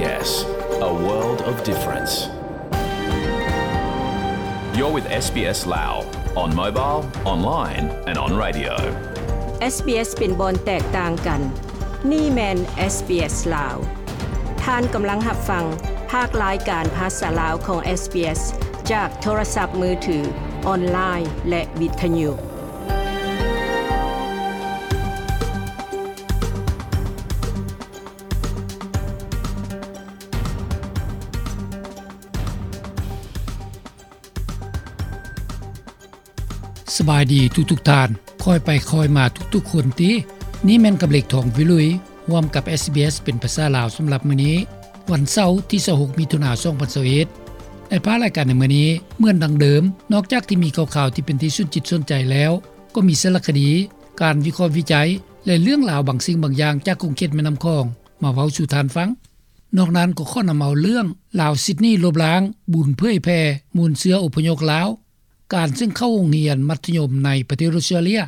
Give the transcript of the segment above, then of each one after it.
SBS, a world of difference. You're with SBS Lao on mobile, online and on radio. SBS ເປັນບ່ອນແຕກຕ່າງກັນ. ນີ້ແມ່ນ SBS ລາວ. ທ່ານກຳລັງຮັບຟັງພາກລາຍການພາສາລາວຂອງ SBS ຈາກໂທລະສັບມືຖື, ອອນລາຍ ແລະ ວິທະຍຸ. ສະບາຍດີທຸກໆທ່ານ, ຄ່ອຍໄປຄ່ອຍມາທຸກໆຄົນຕິ. ນີ້ແມ່ນກຳເລັກ ທອງວິລຸຍ ຮ່ວມກັບ SBS ເປັນພາສາລາວສຳລັບມື້ນີ້, ວັນເສົາ ທີຊາວຫົກ ມິຖຸນາ ສອງພັນຊາວເອັດ. ໃນພາກລາຍການໃນມື້ນີ້, ເໝືອນດັ່ງເດີມ, ນອກຈາກທີ່ມີຂ່າວໆທີ່ເປັນທີ່ສົນຈິດສົນໃຈແລ້ວ, ກໍມີສາລະຄະດີ, ການວິເຄາະວິໄຈ ແລະ ເລື່ອງລາວບາງສິ່ງບາງຢ່າງຈາກຂົງເຂດແມ່ນ້ຳຂອງ ມາເວົ້າສູ່ທ່ານຟັງ. ນອກນັ້ນກໍຂໍນຳເອົາເລື່ອງ ລາວຊິດນີລົບລ້າງ ບຸນເຜີຍແຜ່ມູນເຊື້ອອົບພະຍົບລາວ, ການເຊິ່ງເຂົ້າໂຮງຮຽນມັດທະຍົມໃນປະເທດອົດສະຕຣາເລຍ,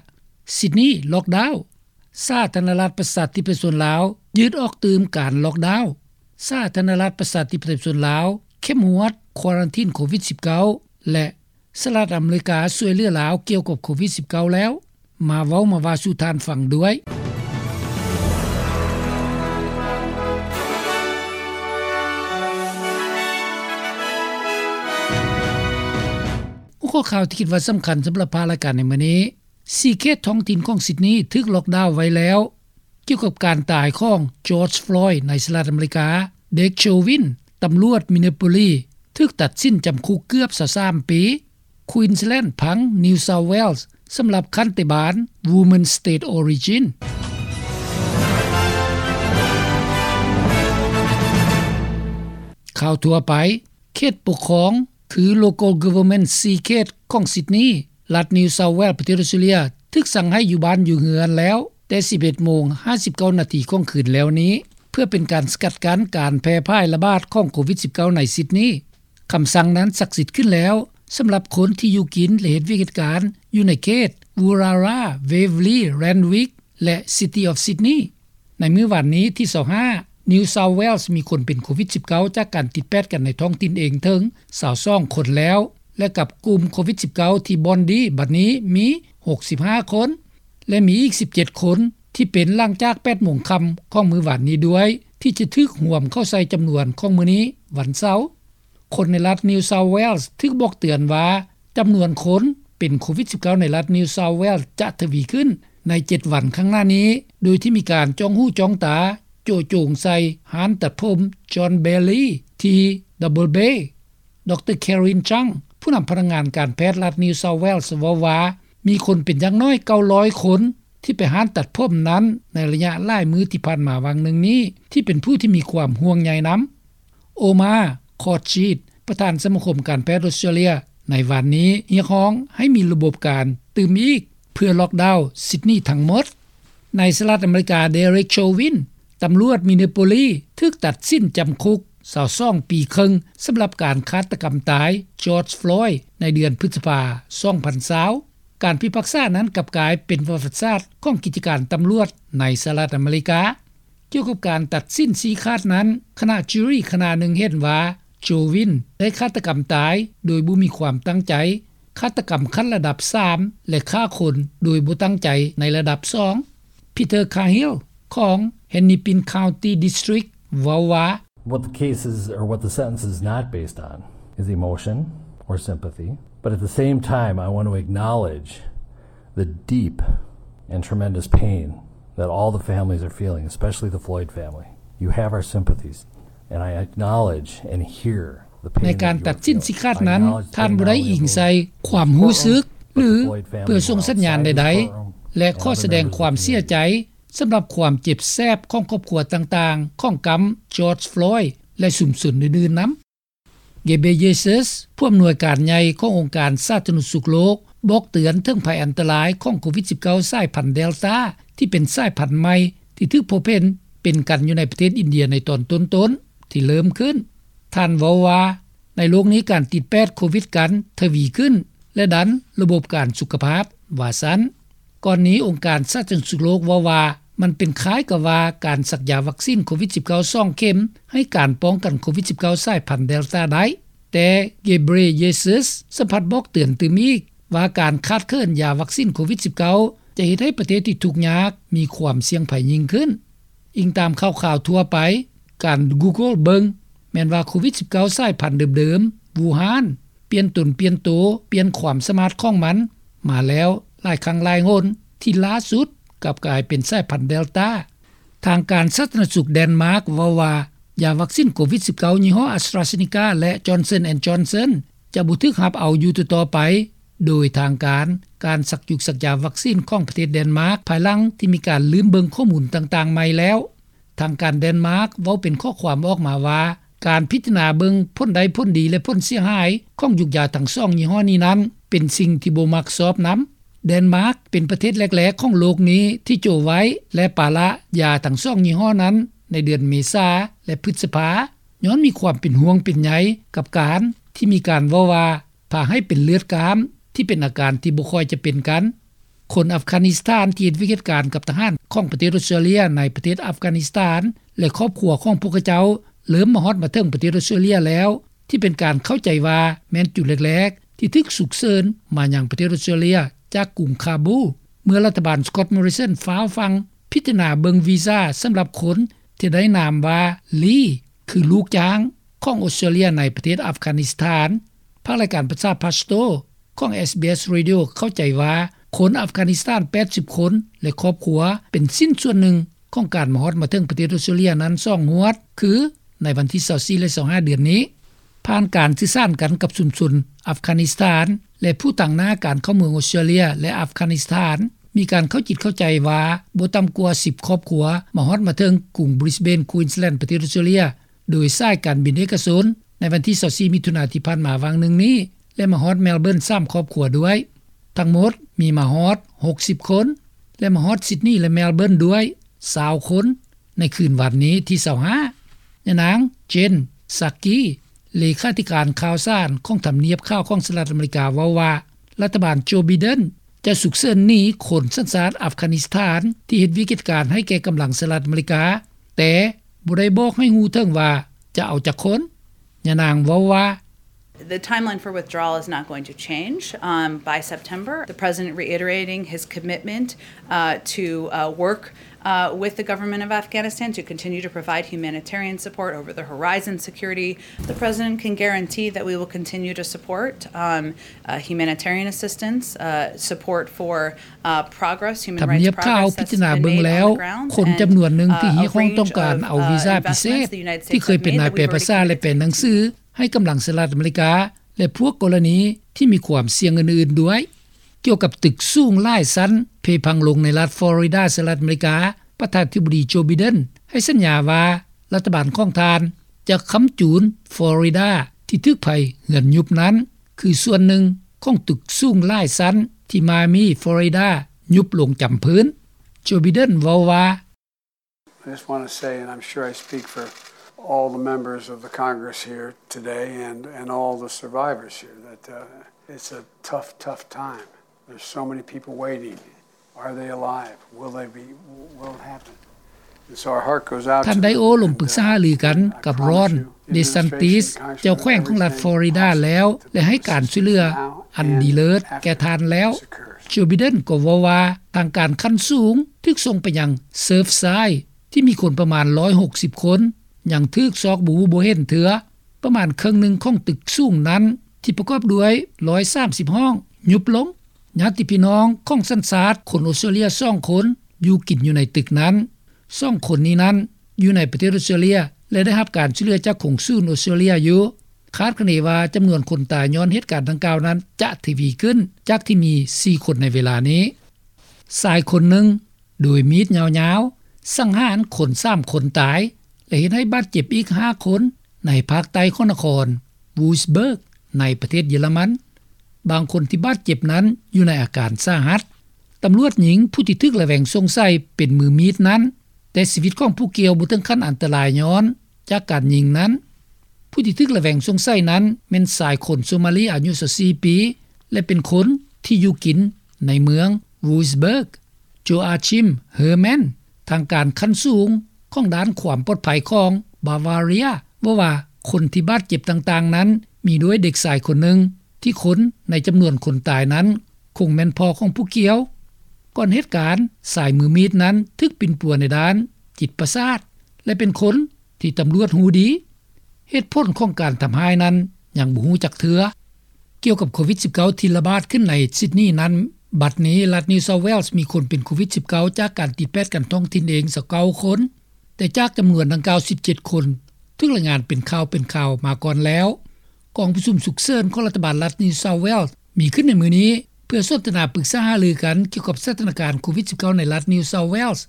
ຊິດນີລັອກດາວ, ສາທາລະນະລັດປະຊາທິປະໄຕປະຊາຊົນລາວ ຢືດອອກຕື່ມການລັອກດາວ, ສາທາລະນະລັດປະຊາທິປະໄຕປະຊາຊົນລາວ ເຂັ້ມງວດຄວາຣັນທີນໂຄວິດສິບເກົ້າ ແລະ ສະຫະລັດອາເມລິກາຊ່ວຍເຫຼືອລາວກ່ຽວກັບໂຄວິດສິບເກົ້າແລ້ວ. ມາເວົ້າມາວ່າສູ່ທ່ານຟັງດ້ວຍ. ຫົວຂໍ້ຂ່າວທີ່ຄິດວ່າສຳຄັນສຳລັບພາກລາຍການໃນມື້ນີ້, ສີ່ເຂດທ້ອງຖິ່ນຂອງຊິດນີຖືກລັອກດາວໄວ້ແລ້ວ. ກ່ຽວກັບການຕາຍຂອງ George Floyd ໃນສະຫະລັດອາເມລິກາ, Derek Chauvin ຕຳຫຼວດ Minneapolis ຖືກຕັດສິນຈຳຄຸກເກືອບຊາວສາມປີ, Queensland ພັງ New South Wales ສຳລັບຂັນຕິບານ Women State Origin. ຂ່າວທົ່ວໄປ, ເຂດປົກຄອງ ຄື Local Government ສີ່ເຂດຂອງຊິດນີ, ລັດ New South Wales ປະເທດອົດສະຕຣາເລຍ ຖືກສັ່ງໃຫ້ຢູ່ບ້ານຢູ່ເຮືອນແລ້ວ ແຕ່ສິບເອັດໂມງຫ້າສິບເກົ້ານາທີຂອງຄືນແລ້ວນີ້ ເພື່ອເປັນການສະກັດກັ້ນການແຜ່ພາຍລະບາດຂອງໂຄວິດສິບເກົ້າໃນຊິດນີ. ຄຳສັ່ງນັ້ນສັກສິດຂຶ້ນແລ້ວ ສຳລັບຄົນທີ່ຢູ່ກິນ ແລະ ເຮັດວຽກເຮັດການຢູ່ໃນເຂດ Woollahra, Waverley, Randwick ແລະ City of Sydney. ໃນມື້ວານນີ້ທີຊາວຫ້າ New South Wales ມີຄົນເປັນໂຄວິດສິບເກົ້າຈາກການຕິດແປດກັນໃນທ້ອງຖິ່ນເອງເຖິງຊາວສອງຄົນແລ້ວ ແລະ ກັບກຸ່ມໂຄວິດສິບເກົ້າທີ່ບ່ອນດີບັດນີ້ມີຫົກສິບຫ້າຄົນ ແລະ ມີອີກສິບເຈັດຄົນທີ່ເປັນຫຼັງຈາກແປດໂມງຄ່ຳຂອງມື້ວານນີ້ດ້ວຍ ທີ່ຈະຖືກຮວມເຂົ້າໃສ່ຈຳນວນຂອງມື້ນີ້ວັນເສົາ. ຄົນໃນລັດ New South Wales ຖືກບອກເຕືອນວ່າ ຈຳນວນຄົນເປັນໂຄວິດສິບເກົ້າໃນລັດ New South Wales ຈະທະວີຂຶ້ນໃນເຈັດວັນຂ້າງໜ້ານີ້, ໂດຍທີ່ມີການຈ້ອງຫູຈ້ອງຕາໂຈະໂຈງໃສ່ຮ້ານຕັດຜົມ John Bailey ທີ່ Double Bay. ດຣ Karen Chang ຜູ້ນຳພະນັກງານການແພດລັດ New South Wales ເວົ້າວ່າ ມີຄົນເປັນຢ່າງໜ້ອຍເກົ້າຮ້ອຍຄົນ ທີ່ໄປຮ້ານຕັດຜົມນັ້ນໃນໄລຍະຫຼາຍມື້ທີ່ຜ່ານມາຫວ່າງໜຶ່ງນີ້ ທີ່ເປັນຜູ້ທີ່ມີຄວາມຫ່ວງໃຍນຳ. Omar Khorshid ປະທານສະມາຄົມການແພດອົດສະຕຣາເລຍ ໃນວານນີ້ຮຽກຮ້ອງໃຫ້ມີລະບົບການຕື່ມອີກ ເພື່ອລັອກດາວຊິດນີທັງໝົດ. ໃນສະຫະລັດອາເມລິກາ, Derek Chauvin ຕຳຫຼວດ Minneapolis ຖືກຕັດສິນຈຳຄຸກຊາວສອງປີເຄິ່ງ ສຳລັບການຄາດຕະກຳຕາຍ George Floyd ໃນເດືອນພຶດສະພາ ສອງພັນຊາວ. ການພິພາກສານັ້ນກັບກາຍເປັນປະຫວັດສາດຂອງກິດຈະການຕຳຫຼວດໃນສະຫະລັດອາເມລິກາ. ກ່ຽວກັບການຕັດສິນຊີ້ຂາດນັ້ນ, ຄະນະຈູຣີຄະນະໜຶ່ງເຫັນວ່າ Chauvin ໄດ້ຄາດຕະກຳຕາຍໂດຍບໍ່ມີຄວາມຕັ້ງໃຈ, ຄາດຕະກຳຂັ້ນລະດັບສາມ ແລະ ຂ້າຄົນໂດຍບໍ່ຕັ້ງໃຈໃນລະດັບສອງ. Peter Cahill ຂອງ Hennepin County District ເວົ້າວ່າ, What the case is, or what the sentence is not based on, is emotion or sympathy. But at the same time, I want to acknowledge the deep and tremendous pain that all the families are feeling, especially the Floyd family. You have our sympathies, and I acknowledge and hear the pain that you are feeling. ໃນການຕັດສິນຊີ້ຂາດນັ້ນ, ທ່ານບໍ່ໄດ້ອີງໃສ່ຄວາມຮູ້ສຶກ ຫຼື ເພື່ອສົ່ງສັນຍານໃດໆ ແລະ ຂໍສະແດງຄວາມເສຍໃຈ ສຳລັບຄວາມເຈັບແສບຂອງຄອບຄົວຕ່າງໆຂອງກຳ George Floyd ແລະ ຊຸມຊົນອື່ນໆນຳ. Ghebreyesus ຜູ້ອຳນວຍການໃຫຍ່ຂອງອົງການສາທາລະນະສຸກໂລກ ບອກເຕືອນເຖິງໄພອັນຕະລາຍຂອງໂຄວິດສິບເກົ້າສາຍພັນ Delta ທີ່ເປັນສາຍພັນໃໝ່ທີ່ຖືກພົບເຫັນເປັນກັນຢູ່ໃນປະເທດອິນເດຍໃນຕອນຕົ້ນໆທີ່ເລີ່ມຂຶ້ນ. ທ່ານເວົ້າວ່າ, ໃນໂລກນີ້ການຕິດແປດໂຄວິດກັນທະວີຂຶ້ນ ແລະ ດັນລະບົບການສຸຂະພາບ, ວ່າຊັ້ນ. ກ່ອນນີ້ອົງການສາທາລະນະສຸກໂລກເວົ້າວ່າ ມັນເປັນຄ້າຍກັບວ່າການສັກຢາວັກຊີນໂຄວິດ-19 ສອງເຂັມ ໃຫ້ການປ້ອງກັນໂຄວິດ-19 ສາຍພັນເດລຕາໄດ້. ແຕ່ Ghebreyesus ສະພັດບອກເຕືອນຕື່ມອີກວ່າ ການຂາດເຂີນຢາວັກຊີນໂຄວິດ-19 ຈະເຮັດໃຫ້ປະເທດທີ່ທຸກຍາກມີຄວາມສ່ຽງໄພຍິ່ງຂຶ້ນ. ອີງຕາມຂ່າວຄາວທົ່ວໄປ, ການ Google ເບິ່ງ ແມ່ນວ່າໂຄວິດ-19 ສາຍພັນເດີມໆ ວູຮານ ປ່ຽນຕົນປ່ຽນໂຕ, ປ່ຽນຄວາມສາມາດຂອງມັນມາແລ້ວຫຼາຍຄັ້ງຫຼາຍຫົນ, ທີ່ລ່າສຸດກັບກາຍເປັນສາຍພັນເດລຕາ. ທາງການສາທາລະນະສຸກແດນມາກເວົ້າວ່າ ຢາວັກຊີນໂຄວິດ-19 ຍີ່ຫໍ້ AstraZeneca ແລະ Johnson and Johnson ຈະບໍ່ຖືກຮັບເອົາຢູ່ຕໍ່ໆໄປ, ໂດຍທາງການ ການສັກຢຸກສັກຢາວັກຊີນຂອງປະເທດແດນມາກ ພາຍຫຼັງທີ່ມີການລືມເບິ່ງຂໍ້ມູນຕ່າງໆໃໝ່ແລ້ວ. ທາງການແດນມາກເວົ້າເປັນຂໍ້ຄວາມອອກມາວ່າ ການພິຈາລະນາເບິ່ງຜົນໄດ້ຜົນດີ ແລະ ຜົນເສຍຫາຍຂອງຢຸກຢາທັງສອງຍີ່ຫໍ້ນີ້ນັ້ນ ເປັນສິ່ງທີ່ບໍ່ມັກຊອບນຳ. ແດນມາກເປັນປະເທດແລກໆຂອງໂລກນີ້ທີ່ Joe White ແລະ ປາລະຢາທັງສອງຍີ່ຫໍ້ນັ້ນໃນເດືອນເມສາ ແລະ ພຶດສະພາ ຍ້ອນມີຄວາມເປັນຫ່ວງເປັນໃຍກັບການທີ່ມີການເວົ້າວ່າ ພາໃຫ້ເປັນເລືອດກ້າມ ທີ່ເປັນອາການທີ່ບໍ່ຄ່ອຍຈະເປັນກັນ. ຄົນອັຟການິສຖານທີ່ເຮັດວຽກເຮັດການກັບທະຫານຂອງປະເທດອົດສະຕຣາເລຍໃນປະເທດອັຟການິສຖານ ແລະ ຄອບຄົວຂອງພວກເຂົາເຈົ້າ ເລີ່ມມາຮອດມາເຖິງປະເທດອົດສະຕຣາເລຍແລ້ວ ທີ່ເປັນການເຂົ້າໃຈວ່າແມ່ນຈຸດແລກໆທີ່ຖືກສຸກເສີນມາຍັງປະເທດອົດສະຕຣາເລຍຈາກກຸງຄາບູ ເມື່ອລັດຖະບານ Scott Morrison ຟ້າວຟັ່ງພິຈາລະນາເບິ່ງວີຊາສຳລັບຄົນທີ່ໄດ້ນາມວ່າ Lee ຄືລູກຈ້າງຂອງອົດສະຕຣາເລຍໃນປະເທດອັຟການິສຖານ. ພາກລາຍການພາສາພາສໂຕຂອງ SBS Radio ເຂົ້າໃຈວ່າ ຄົນອັຟການິສຖານ ແປດສິບຄົນ ແລະ ຄອບຄົວ ເປັນຊິ້ນສ່ວນໜຶ່ງຂອງການມາຮອດມາເຖິງປະເທດອົດສະຕຣາເລຍນັ້ນສອງງວດ ຄືໃນວັນທີ ຊາວສີ່ ແລະ ຊາວຫ້າ ເດືອນນີ້. ຜ່ານການສື່ສານກັນກັບຊຸມຊົນອັຟການິສຖານ ແລະ ຜູ້ຕາງໜ້າການເຂົ້າເມືອງອົດສະຕຣາເລຍ ແລະ ອັຟການິສຖານ ມີການເຂົ້າຈິດເຂົ້າໃຈວ່າ ບໍ່ຕ່ຳກວ່າ ສິບຄອບຄົວ ມາຮອດມາເຖິງກຸງ Brisbane Queensland ປະເທດອົດສະຕຣາເລຍ ໂດຍສາຍການບິນເອກະຊົນ ໃນວັນທີ ຊາວສີ່ ມິຖຸນາທີ່ຜ່ານມາຫວ່າງໜຶ່ງນີ້ ແລະ ມາຮອດ Melbourne ສາມຄອບຄົວດ້ວຍ. ທັງໝົດມີມາຮອດ ຫົກສິບຄົນ ແລະ ມາຮອດ Sydney ແລະ Melbourne ດ້ວຍ ຊາວຄົນ ໃນຄືນວັນນີ້ທີ ຊາວຫ້າ. ຍານາງ Jen Psaki ເລຂາທິການຂ່າວສານຂອງທຳນຽບຂາວຂອງສະຫະລັດອາເມລິກາ ເວົ້າວ່າ ລັດຖະບານ Joe Biden ຈະສຸກເສີນໜີຄົນສັນຊາດອັຟການິສຖານ ທີ່ເຮັດວຽກເຮັດການໃຫ້ແກ່ກຳລັງສະຫະລັດອາເມລິກາ, ແຕ່ບໍ່ໄດ້ບອກໃຫ້ຮູ້ເຖິງວ່າຈະເອົາຈັກຄົນ. ຍານາງເວົ້າວ່າ The timeline for withdrawal is not going to change. Um, by September, the president reiterating his commitment, uh, to, uh, work, uh, with the government of Afghanistan to continue to provide humanitarian support, over the horizon security. The president can guarantee that we will continue to support, um, uh, humanitarian assistance, uh, support for ທຳນຽບຂ່າວພິຈາລະນາເບິ່ງແລ້ວ ຄົນຈຳນວນໜຶ່ງທີ່ຮຽກຮ້ອງຕ້ອງການເອົາວີຊາພິເສດ ທີ່ເຄີຍເປັນນາຍແປພາສາ ແລະ ແປໜັງສືໃຫ້ກຳລັງສະຫະລັດອາເມລິກາ ແລະ ພວກກໍລະນີທີ່ມີຄວາມສ່ຽງອື່ນໆດ້ວຍ. ກ່ຽວກັບຕຶກສູງຫຼາຍຊັ້ນເພພັງລົງໃນລັດຟລໍຣິດາ ສະຫະລັດອາເມລິກາ, ປະທານາທິບໍດີ ໂຈ ໄບເດັນ ໃຫ້ສັນຍາວ່າ ລັດຖະບານຂອງທ່ານຈະຄ້ຳຈູນຟລໍຣິດາທີ່ຖືກໄຟເຮືອນຍຸບນັ້ນ ຄືສ່ວນໜຶ່ງຂອງຕຶກສູງຫຼາຍຊັ້ນທີ່ມາມີ ຟລໍຣິດາ ຍຸບລົງຈຳພື້ນ. ໂຈ ໄບເດັນ ເວົ້າວ່າ I just wanna say, and I'm sure I speak for all the members of the Congress here today and, and all the survivors here, that, uh, it's a tough, tough time. There's so many people waiting. Are they alive? Will they be, will it happen? And so our heart goes out to them. ທ່ານໄດໂອລົມປຶກສາຫາລືກັນກັບຣອນ ເດຊັນຕິສ ເຈົ້າແຂວງຂອງລັດຟລໍຣິດາແລ້ວ ແລະ ໃຫ້ການຊ່ວຍເຫຼືອອັນດີເລີດແກ່ທ່ານແລ້ວ. ໂຈ ໄບເດັນ ກໍເວົ້າວ່າ ທາງການຂັ້ນສູງຖືກສົ່ງໄປຍັງເຊີຟຊາຍ ທີ່ມີຄົນປະມານ ໜຶ່ງຮ້ອຍຫົກສິບຄົນ ຍັງຖືກຊອກບໍ່ຮູ້ບໍ່ເຫັນເທື່ອ. ປະມານເຄິ່ງໜຶ່ງຂອງຕຶກສູງນັ້ນ ທີ່ປະກອບດ້ວຍ ໜຶ່ງຮ້ອຍສາມສິບຫ້ອງ ຍຸບລົງ. ຍາດຕິພີ່ນ້ອງຂອງສັນຊາດຄົນອົດສະຕຣາເລຍສອງຄົນ ຢູ່ກິນຢູ່ໃນຕຶກນັ້ນ. ສອງຄົນນີ້ນັ້ນ ຢູ່ໃນປະເທດອົດສະຕຣາເລຍ ແລະ ໄດ້ຮັບການຊ່ວຍເຫຼືອຈາກກົງສູນອົດສະຕຣາເລຍຢູ່. ຄາດຄະເນວ່າຈຳນວນຄົນຕາຍຍ້ອນເຫດການດັ່ງກ່າວນັ້ນ ຈະທະວີຂຶ້ນ ຈາກທີ່ມີສີ່ຄົນໃນເວລານີ້. ຊາຍຄົນໜຶ່ງ ໂດຍມີດຍາວໆ ສັງຫານຄົນສາມຄົນຕາຍ ແລະ ເຮັດໃຫ້ບາດເຈັບອີກຫ້າຄົນ ໃນພາກໃຕ້ຂອງນະຄອນ Wurzburg ໃນປະເທດເຢຍລະມັນ. ບາງຄົນທີ່ບາດເຈັບນັ້ນ ຢູ່ໃນອາການສາຫັດ. ຕຳຫຼວດຍິງຜູ້ທີ່ຖືກລະແວງສົງໄສເປັນມືມີດນັ້ນ, ແຕ່ຊີວິດຂອງຜູ້ກ່ຽວບໍ່ເຖິງຂັ້ນອັນຕະລາຍຍ້ອນຈາກການຍິງນັ້ນ. ຜູ້ທີ່ຖືກລະແວງສົງໄສນັ້ນ ແມ່ນຊາຍຄົນໂຊມາລີອາຍຸຊາວສີ່ປີ ແລະ ເປັນຄົນທີ່ຢູ່ກິນໃນເມືອງ Wurzburg. Joachim Hermann ທາງການຂັ້ນສູງຂອງດ້ານຄວາມປອດໄພຂອງ Bavaria ເວົ້າວ່າ ຄົນທີ່ບາດເຈັບຕ່າງໆນັ້ນ ມີດ້ວຍເດັກຊາຍຄົນໜຶ່ງ ທີ່ຄົນໃນຈຳນວນຄົນຕາຍນັ້ນ ຄົງແມ່ນພໍ່ຂອງຜູ້ກ່ຽວ. ກ່ອນເຫດການ, ຊາຍມືມີດນັ້ນຖືກປິ່ນປົວໃນດ້ານຈິດປະສາດ ແລະ ເປັນຄົນທີ່ຕຳຫຼວດຮູ້ດີ. ເຫດຜົນຂອງການທຳຮ້າຍນັ້ນຍັງບໍ່ຮູ້ຈັກເທື່ອ. ກ່ຽວກັບໂຄວິດ-ສິບເກົ້າ ທີ່ລະບາດຂຶ້ນໃນ Sydney ນັ້ນ, ບັດນີ້ລັດ New South Wales ມີຄົນເປັນໂຄວິດ-ສິບເກົ້າ ຈາກການຕິດແປດກັນທ້ອງຖິ່ນເອງ ຊາວເກົ້າຄົນ, ແຕ່ຈາກຈຳນວນດັ່ງກ່າວ ສິບເຈັດຄົນ ຖືກລາຍງານເປັນຂ່າວເປັນຄາວມາກ່ອນແລ້ວ. ກອງປະຊຸມສຸກເສີນຂອງລັດຖະບານລັດ New South Wales ມີຂຶ້ນໃນມື້ນີ້ ເພື່ອສົນທະນາປຶກສາຫາລືກັນກ່ຽວກັບສະຖານະການໂຄວິດ-ສິບເກົ້າ ໃນລັດ New South Wales.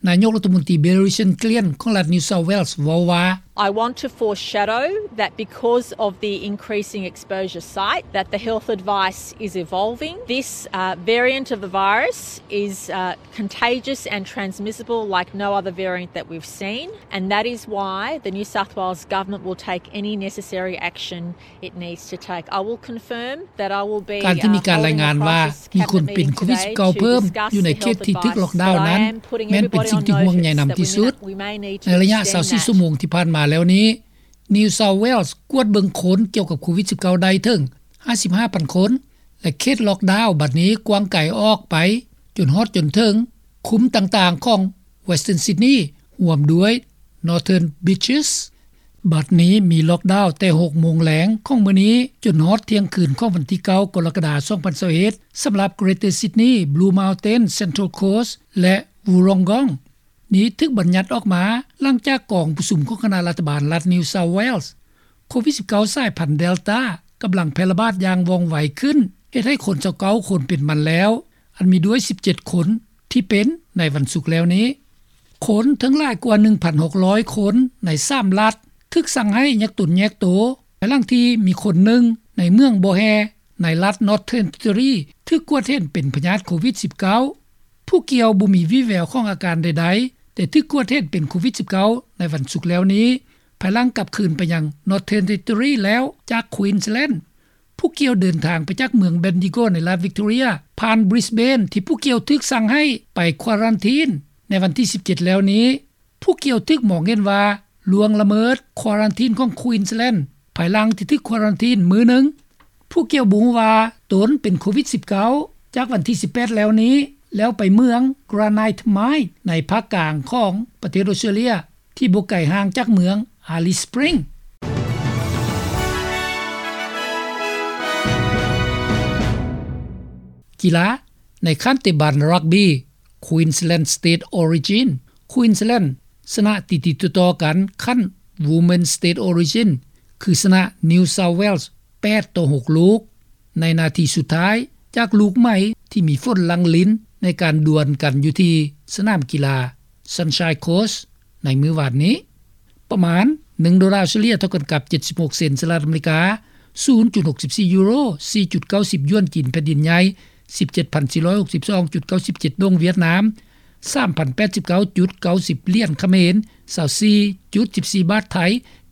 ນາຍົກລັດຖະມົນຕີ Bill Richards-Glenn ຂອງລັດ New South Wales ເວົ້າວ່າ I want to foreshadow that because of the increasing exposure site, that the health advice is evolving. This, uh, variant of the virus is, uh, contagious and transmissible like no other variant that we've seen, and that is why the New South Wales government will take any necessary action it needs to take. I will confirm that I will be, ການທີ່ມີການລາຍງານວ່າມີຄົນເປັນໂຄວິດ-ສິບເກົ້າ ເພີ່ມຢູ່ໃນເຂດທີ່ຖືກລັອກດາວນັ້ນ ແມ່ນເປັນສິ່ງທີ່ຫ່ວງໃຍນຳທີ່ສຸດ. ໃນໄລຍະຊາວສີ່ຊົ່ວໂມງທີ່ຜ່ານມາແລ້ວນີ້ New South Wales ກວດເບິ່ງຄົນກ່ຽວກັບໂຄວິດ-ສິບເກົ້າ ໄດ້ເຖິງຫ້າສິບຫ້າພັນຄົນ ແລະ ເຂດລັອກດາວບັດນີ້ກວ້າງໄກອອກໄປຈົນຮອດຈົນເຖິງຄຸ້ມຕ່າງໆຂອງ Western Sydney ຮ່ວມດ້ວຍ Northern Beaches. ບັດນີ້ມີລັອກດາວແຕ່ຫົກໂມງແລງຂອງມື້ນີ້ ຈົນຮອดທ່ຽງຄືນຂອງວັນທີເກົ້າ ກໍລະກະດາ ສອງພັນຊາວເອັດ ສຳລັບ Greater Sydney, Blue Mountain, Central Coast ແລະ Wollongong. ນີ້ຖືກບັນຍັດອອກມາຫຼັງຈາກກອງປະຊຸມຂອງຄະນະລັດຖະບານລັດ New South Wales. ໂຄວິດ-ສິບເກົ້າ ສາຍພັນ Delta ກຳລັງແຜ່ລະບາດຢ່າງວ່ອງໄວຂຶ້ນ, ເຮັດໃຫ້ຄົນຊາວເກົ້າຄົນເປັນມັນແລ້ວ, ອັນມີດ້ວຍສິບເຈັດຄົນທີ່ເປັນໃນວັນສຸກແລ້ວນີ້. ຄົນທັງຫຼາຍກວ່າໜຶ່ງພັນຫົກຮ້ອຍຄົນໃນສາມລັດ ຖືກສັ່ງໃຫ້ແຍກຕົນແຍກໂຕ, ພາຍຫຼັງທີ່ມີຄົນໜຶ່ງໃນເມືອງບໍ່ແຮ່ ໃນລັດ Northern Territory ຖືກກວດເຫັນເປັນພະຍາດໂຄວິດ-ສິບເກົ້າ. ຜູ້ກ່ຽວບໍ່ມີວີ່ແວວຂອງອາການໃດໆ, ແຕ່ຖືກກວດເຫັນເປັນໂຄວິດ-ສິບເກົ້າ ໃນວັນສຸກແລ້ວນີ້, ພາຍຫຼັງກັບຄືນໄປຍັງ Northern Territory ແລ້ວຈາກ Queensland. ຜູ້ກ່ຽວເດີນທາງໄປຈາກເມືອງ Bendigo ໃນລັດ Victoria ຜ່ານ Brisbane ທີ່ຜູ້ກ່ຽວຖືກສັ່ງໃຫ້ໄປ quarantine ໃນວັນທີສິບເຈັດແລ້ວນີ້. ຜູ້ກ່ຽວຖືກມອງເຫັນວ່າລ່ວງລະເມີດ quarantine ຂອງ Queensland ພາຍຫຼັງທີ່ຖືກ quarantine ມື້ໜຶ່ງ. ຜູ້ກ່ຽວບໍ່ຮູ້ວ່າຕົນເປັນໂຄວິດ-ສິບເກົ້າ ຈາກວັນທີສິບແປດແລ້ວນີ້, ແລ້ວໄປເມືອງ Granite Mine ໃນພາກກາງຂອງປະເທດອອສເຕຣເລຍ ທີ່ບໍ່ໄກຫ່າງຈາກເມືອງ Alice Springs. ກິລາ ໃນຂັ້ນເຕະບານຣັກບີ Queensland State Origin, Queensland ຊະນະຕິດໆຕໍ່ໆກັນຂັ້ນ Women's State Origin ຄືຊະນະ New South Wales ແປດຕໍ່ຫົກລູກ ໃນນາທີສຸດທ້າຍ ຈາກລູກໃໝ່ທີ່ມີຝົນຫຼັ່ງລິນໃນການດວນກັນຢູ່ທີ່ສະໜາມກິລາ Sunshine Coast ໃນມື້ວານນີ້. ປະມານໜຶ່ງໂດລາເສລີຍເທົ່າກັນກັບເຈັດສິບຫົກເຊັນສະຫະລັດອາເມລິກາ, ສູນຈຸດຫົກສິບສີ່ຢູໂຣ, ສີ່ຈຸດເກົ້າສິບຢວນຈີນແຜ່ນດິນໃຫຍ່, ສິບເຈັດພັນສີ່ຮ້ອຍຫົກສິບສອງຈຸດເກົ້າສິບເຈັດດົງຫວຽດນາມ, ສາມພັນແປດສິບເກົ້າຈຸດເກົ້າສິບຫຼຽນຂະເໝນ, ຊາວສີ່ຈຸດສິບສີ່ບາດໄທ,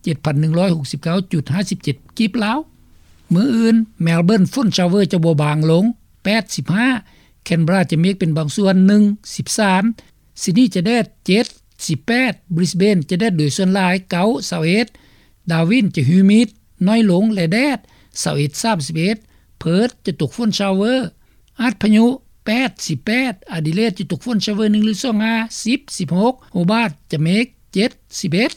ເຈັດພັນໜຶ່ງຮ້ອຍຫົກສິບເກົ້າຈຸດຫ້າສິບເຈັດກີບລາວ. ມື້ອື່ນ Melbourne ຝົນ shower ຈະບໍ່ບາງລົງ ແປດສິບຫ້າ, Canberra ຈະເມກເປັນບາງສ່ວນ ໜຶ່ງ ສິບສາມ, Sydney ຈະແດດ ເຈັດ ສິບແປດ, Brisbane ຈະແດດໂດຍສ່ວນຫຼາຍ ເກົ້າ ຊາວເອັດ, Darwin ຈະ humid ໜ້ອຍລົງ ແລະ ແດດ ຊາວເອັດ ສາມສິບເອັດ, Perth ຈະຕົກຝົນ shower ອາດພະຍຸ ແປດ ສິບແປດ, Adelaide ຈະຕົກຝົນ shower ໜຶ່ງ ຫຼື ສອງ ຫ້າ ສິບ ສິບຫົກ, Hobart ຈະເມກ ເຈັດ ສິບເອັດ.